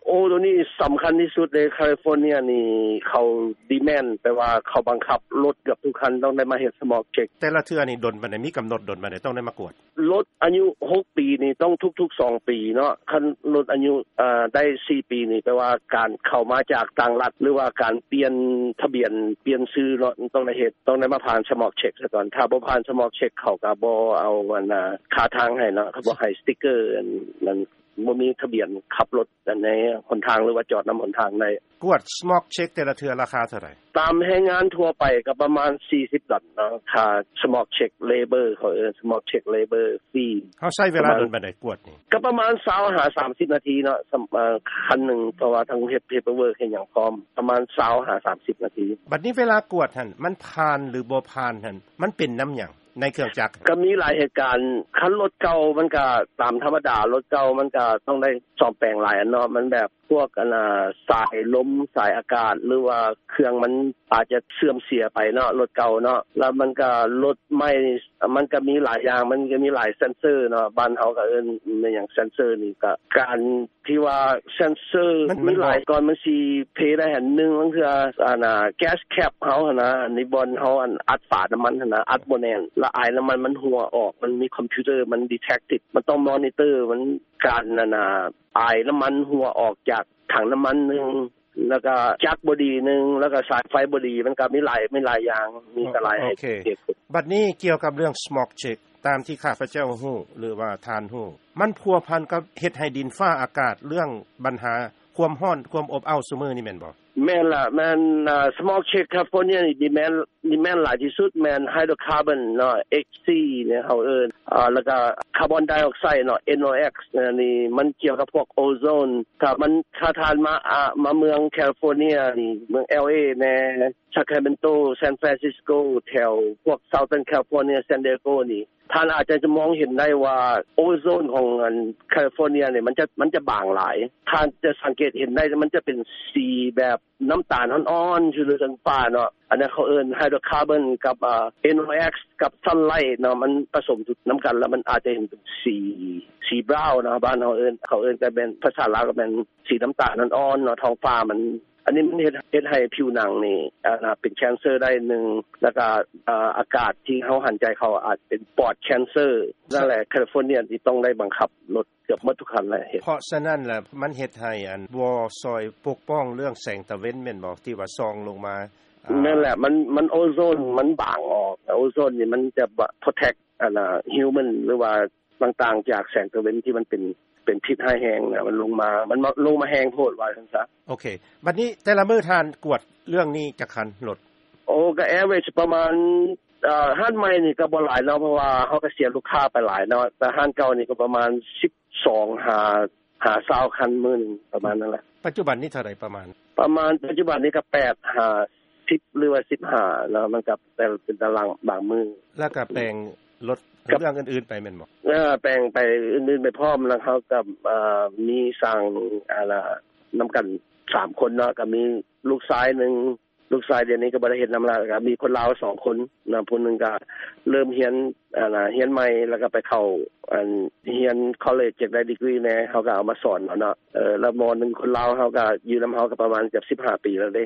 ໂອ້ ໂຕນີ້ສຳຄັນທີ່ສຸດເດ້. ຄາລິຟໍເນັຍນີ້ເຂົາດີແມນ ແປວ່າເຂົາບັງຄັບລົດເກືອບທຸກຄັນຕ້ອງໄດ້ມາເຮັດສະໝອກເຊັກ. ແຕ່ລະເທື່ອນີ້ດົນປານໃດ? ມີກຳນົດດົນປານໃດຕ້ອງໄດ້ມາກວດ? ລົດອາຍຸຫົກປີນີ້ຕ້ອງທຸກໆສອງປີເນາະ. ຄັນລົດອາຍຸ ເອີ ໄດ້ສີ່ປີນີ້ ແປວ່າການເຂົ້າມາຈາກຕ່າງລັດ ຫຼືວ່າການປ່ຽນທະບຽນ ປ່ຽນຊື່ເນາະ ຕ້ອງໄດ້ເຮັດ ຕ້ອງໄດ້ມາຜ່ານສະໝອກເຊັກສາກ່ອນ. ຖ້າບໍ່ຜ່ານສະໝອກເຊັກ ເຂົາກໍບໍ່ເອົາອັນ ອາ ຄ່າທາງໃຫ້ເນາະ ເຂົາບໍ່ໃຫ້ສະຕິກເກີ ອັນນັ້ນ ບໍ່ມີທະບຽນຂັບລົດ ອັນໃນຫົນທາງ ຫຼືວ່າຈອດນຳຫົນທາງໄດ້. ກວດສະໝອກເຊັກແຕ່ລະເທື່ອລາຄາເທົ່າໃດ? ຕາມແຮງງານທົ່ວໄປກໍປະມານສີ່ສິບດອນເນາະ ຄ່າສະໝອກເຊັກເລເບີ ເຂົາເອີ້ນສະໝອກເຊັກເລເບີຟຣີ. ເຮົາໃຊ້ເວລາດົນປານໃດກວດນີ້? ກໍປະມານຊາວຫາສາມສິບນາທີເນາະ ສຳ ເອີ ຄັນໜຶ່ງ ເພາະວ່າຕ້ອງເຮັດເພເປີເວີກເຮັດຫຍັງພ້ອມ ປະມານຊາວຫາສາມສິບນາທີ. ບັດນີ້ເວລາກວດຫັ້ນ ມັນຜ່ານ ຫຼື ບໍ່ຜ່ານຫັ້ນ ມັນເປັນນຳຫຍັງ? ໃນເຄື່ອງຈັກ ກໍມີຫຼາຍເຫດການ. ຄັນລົດເກົ່າມັນກໍຕາມທຳມະດາ ລົດເກົ່າມັນກໍຕ້ອງໄດ້ສ້ອມແປງຫຼາຍອັນເນາະ ມັນແບບພວກອັນນ່າ ສາຍລົມ ສາຍອາກາດ ຫຼືວ່າເຄື່ອງມັນອາດຈະເສື່ອມເສຍໄປເນາະ ລົດເກົ່າເນາະ. ແລ້ວມັນກໍ ລົດໃໝ່ມັນກໍມີຫຼາຍຢ່າງ ມັນກໍມີຫຼາຍເຊັນເຊີເນາະ ບ້ານເຮົາກໍເອີ້ນແມ່ນຫຍັງ ເຊັນເຊີນີ້ ກໍການ ທີ່ວ່າເຊັນເຊີມັນ ມັນ ມີຫຼາຍ ບອກ ກ່ອນມັນຊິເພໄດ້ຫັ້ນ ໜຶ່ງ ບາງເທື່ອ ອັນນ່າ ແກັສແຄັບເຮົາຫັ້ນນະ ອັນນີ້ບ່ອນເຮົາອັນອັດຝານ້ຳມັນຫັ້ນນະ ອັດບໍ່ແໜ້ນ ແລ້ວອາຍນ້ຳມັນມັນຮົ່ວອອກ ມັນມີຄອມພິວເຕີມັນດີແທກຕິດ ມັນຕ້ອງມໍນິເຕີ ມັນ ການອັນນ່າ ອາຍນ້ຳມັນຮົ່ວອອກຈາກຖັງນ້ຳມັນໜຶ່ງ ແລ້ວກໍຈັກບໍ່ດີໜຶ່ງ ແລ້ວກໍສາຍໄຟບໍ່ດີ ມັນກໍມີຫຼາຍ ມີຫຼາຍຢ່າງ ມີກໍຫຼາຍ ໂອເຄ ເຫດຜົນ. ບັດນີ້ກ່ຽວກັບເລື່ອງສະໝອກເຊັກ ຕາມທີ່ຂ້າພະເຈົ້າຮູ້ ຫຼືວ່າທ່ານຮູ້ ມັນພົວພັນກັບເຮັດໃຫ້ດິນຟ້າອາກາດ ເລື່ອງບັນຫາຄວາມຮ້ອນ ຄວາມອົບອ້າວຊຸມື້ນີ້ແມ່ນບໍ່? ແມ່ນລະ ແມ່ນ ສະໝອກເຊັກຄາລິຟໍເນຍນີ້ດີແມນ ດີແມນຫຼາຍທີ່ສຸດແມ່ນໄຮໂດຣຄາບອນເນາະ ເອັກຊີ ເນາະ ເຮົາເອີ້ນ ແລ້ວກໍຄາບອນໄດອອກໄຊເນາະ ເອັນໂອເອັກ ອັນນີ້ມັນກ່ຽວກັບພວກໂອໂຊນ ຖ້າມັນ ຖ້າທ່ານມາ ອາ ມາເມືອງຄາລິຟໍເນຍນີ້ ເມືອງແອລເອແດ່ ຊາຄຣາເມນໂຕ ຊານຟຣານຊິສໂກ ແຖວພວກ Southern California San Diego ນີ້ ທ່ານອາດຈະມອງເຫັນໄດ້ວ່າໂອໂຊນຂອງອັນຄາລິຟໍເນຍນີ້ ມັນຈະ ມັນຈະບາງຫຼາຍ ທ່ານຈະສັງເກດເຫັນໄດ້ ມັນຈະເປັນສີແບບ ນ້ຳຕານອ່ອນໆ ຢູ່ເທິງຟ້າເນາະ ອັນນັ້ນເຂົາເອີ້ນໄຮໂດຣຄາບອນກັບ ເອີ ເອັນໂອເອັກ ກັບຊັນໄລເນາະ ມັນປະສົມນຳກັນ ແລ້ວມັນອາດຈະເຫັນເປັນສີ ສີບຣາວເນາະ ບ້ານເຮົາເອີ້ນ ເຂົາເອີ້ນກໍແມ່ນ ພາສາລາວກໍແມ່ນສີນ້ຳຕານອ່ອນໆເນາະ ທ້ອງຟ້າມັນ ອັນນີ້ມັນເຮັດ ເຮັດໃຫ້ຜິວໜັງນີ້ ອາ ເປັນແຄນເຊີໄດ້ໜຶ່ງ ແລ້ວກໍ ອາ ອາກາດທີ່ເຮົາຫັນໃຈເຂົ້າອາດເປັນປອດແຄນເຊີ ນັ້ນແຫຼະ ຄາລິຟໍເນຍທີ່ຕ້ອງໄດ້ບັງຄັບລົດ ເກືອບໝົດທຸກຄັນແຫຼະເຮັດ. ເພາະສະນັ້ນລະ ມັນເຮັດໃຫ້ອັນບໍ່ຊ່ອຍປົກປ້ອງເລື່ອງແສງຕາເວັນແມ່ນບໍ່? ທີ່ວ່າສ່ອງລົງມາ ອາ ແມ່ນແຫຼະ ມັນ ມັນໂອໂຊນມັນບາງອອກ ໂອໂຊນນີ້ມັນຈະໂປຣເທັກ ອັນນ່າ ຮີວແມນ ຫຼືວ່າຕ່າງໆ ຈາກແສງຕາເວັນທີ່ມັນເປັນ ເປັນພິດຮ້າຍແຮງນະ ມັນລົງມາ ມັນມາ ລົງມາແຮງໂພດວ່າຊັ້ນຊະ. ໂອເຄ ບັດນີ້ແຕ່ລະມື້ທ່ານກວດເລື່ອງນີ້ຈັກຄັນລົດ? ໂອ້ ກໍແອເວີຈປະມານ ເອີ ຮ້ານໃໝ່ນີ້ກໍບໍ່ຫຼາຍເນາະ ເພາະວ່າເຮົາກໍເສຍລູກຄ້າໄປຫຼາຍເນາະ ແຕ່ຮ້ານເກົ່ານີ້ກໍປະມານສິບສອງຫາ ຫາຊາວຄັນມື້ໜຶ່ງ ປະມານນັ້ນແຫຼະ. ປັດຈຸບັນນີ້ເທົ່າໃດປະມານ? ປະມານປັດຈຸບັນນີ້ກໍແປດຫາສິບ ຫຼືວ່າສິບຫ້າເນາະ ມັນກໍແຕ່ເປັນຕາລາງບາງມື້. ແລ້ວກໍແປງລົດ ກັບເລື່ອງອື່ນໆໄປແມ່ນບໍ່? ເອີ ແປງໄປອື່ນໆໄປພ້ອມ ແລ້ວເຮົາກໍ ເອີ ມີສ້າງ ອັນນ່າ ນຳກັນສາມຄົນເນາະ ກໍມີລູກຊາຍໜຶ່ງ ລູກຊາຍດຽວນີ້ກໍບໍ່ໄດ້ເຮັດນຳລະ ກໍມີຄົນລາວສອງຄົນນະ ຜູ້ໜຶ່ງກໍເລີ່ມຮຽນ ອັນນ່າ ຮຽນໃໝ່ ແລ້ວກໍໄປເຂົ້າ ອັນ ຮຽນຄໍເລຈ ຢາກໄດ້ດີກຣີແດ່ ເຮົາກໍເອົາມາສອນເອົາເນາະ ເອີ ແລ້ວໝໍໜຶ່ງຄົນລາວເຮົາກໍຢູ່ນຳເຮົາກໍປະມານເກືອບສິບຫ້າປີແລ້ວເດ້.